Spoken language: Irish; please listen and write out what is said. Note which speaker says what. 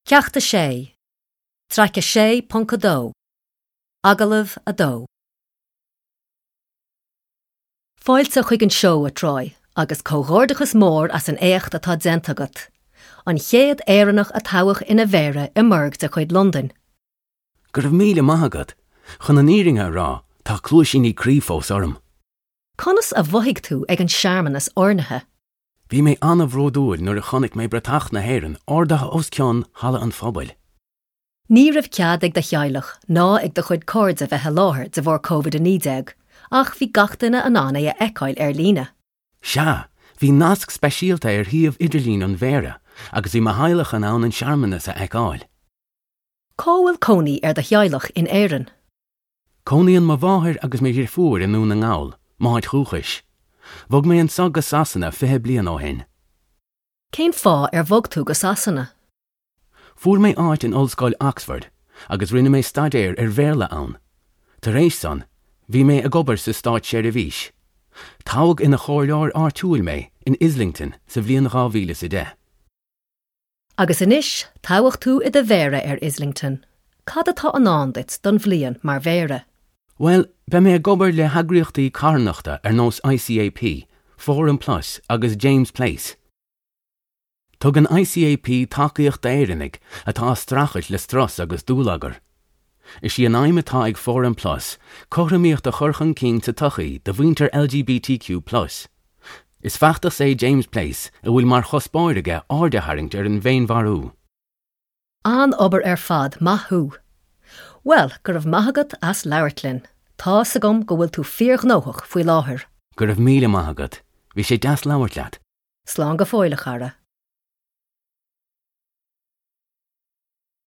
Speaker 1: Ceacht 6, Traic 6.2, Agallamh 2. Fáilte chuig an seó, a Troy, agus comhghairdeachas mór as an éacht atá déanta agat. An chéad Éireannach a toghadh ina mhéara i mbuirg de chuid Londain.
Speaker 2: Go raibh míle maith agat. Chun an fhírinne a rá, tá cluaisíní croí fós orm.
Speaker 1: Conas a mhothaigh tú ag an searmanas oirnithe?
Speaker 2: Bhí mé an-bhródúil nuair a chonaic mé bratach na hÉireann ardaithe os cionn Halla an Phobail.
Speaker 1: Ní raibh cead ag do theaghlach ná ag do chuid cairde bheith i láthair de bharr Covid-19 ach bhí gach duine in ann é a fheiceáil ar líne.
Speaker 2: Sea, bhí nasc speisialta ar shuíomh idirlín an Mhéara agus bhí mo theaghlach in ann an searmanas a fheiceáil.
Speaker 1: Cá bhfuil cónaí ar do theaghlach in Éirinn?
Speaker 2: Cónaíonn mo mháthair agus mo dhrifiúr i nDún na nGall, m'áit dhúchais. Bhog mé anso go Sasana 20 bliain ó shin.
Speaker 1: Cén fáth ar bhog tú go Sasana?
Speaker 2: Fuair mé áit in Ollscoil Oxford agus rinne mé staidéar ar Bhéarla ann. Tar éis san, bhí mé ag obair sa státseirbhís. Toghadh ina chomhairleoir áitiúil mé in Islington sa bhliain 2010.
Speaker 1: Agus anois, toghadh tú i do mhéara ar Islington, cad atá i ndán duit don bhliain mar mhéara?
Speaker 2: Bhuel, beidh mé ag obair le heagraíochtaí carthanachta ar nós ICAP, Forum Plus agus James Place. Tugann ICAP tacaíocht d'Éireannaigh atá ag streachailt le strus agus dúlagar. Is í an aidhm atá ag Forum Plus cothromaíocht a chur chun cinn sa tsochaí do mhuintir LGBTQ plus. Is feachtas é James Place a bhfuil mar chuspóir aige aird a tharraingt ar an bhféinmharú.
Speaker 1: An-obair ar fad, maith thú! Bhuel, go raibh maith agat as labhairt linn. Tá's agam go bhfuil tú fíorghnóthach faoi láthair.
Speaker 2: Go raibh míle maith agat. Bhí sé deas labhairt leat.
Speaker 1: Slán go fóill, a chara.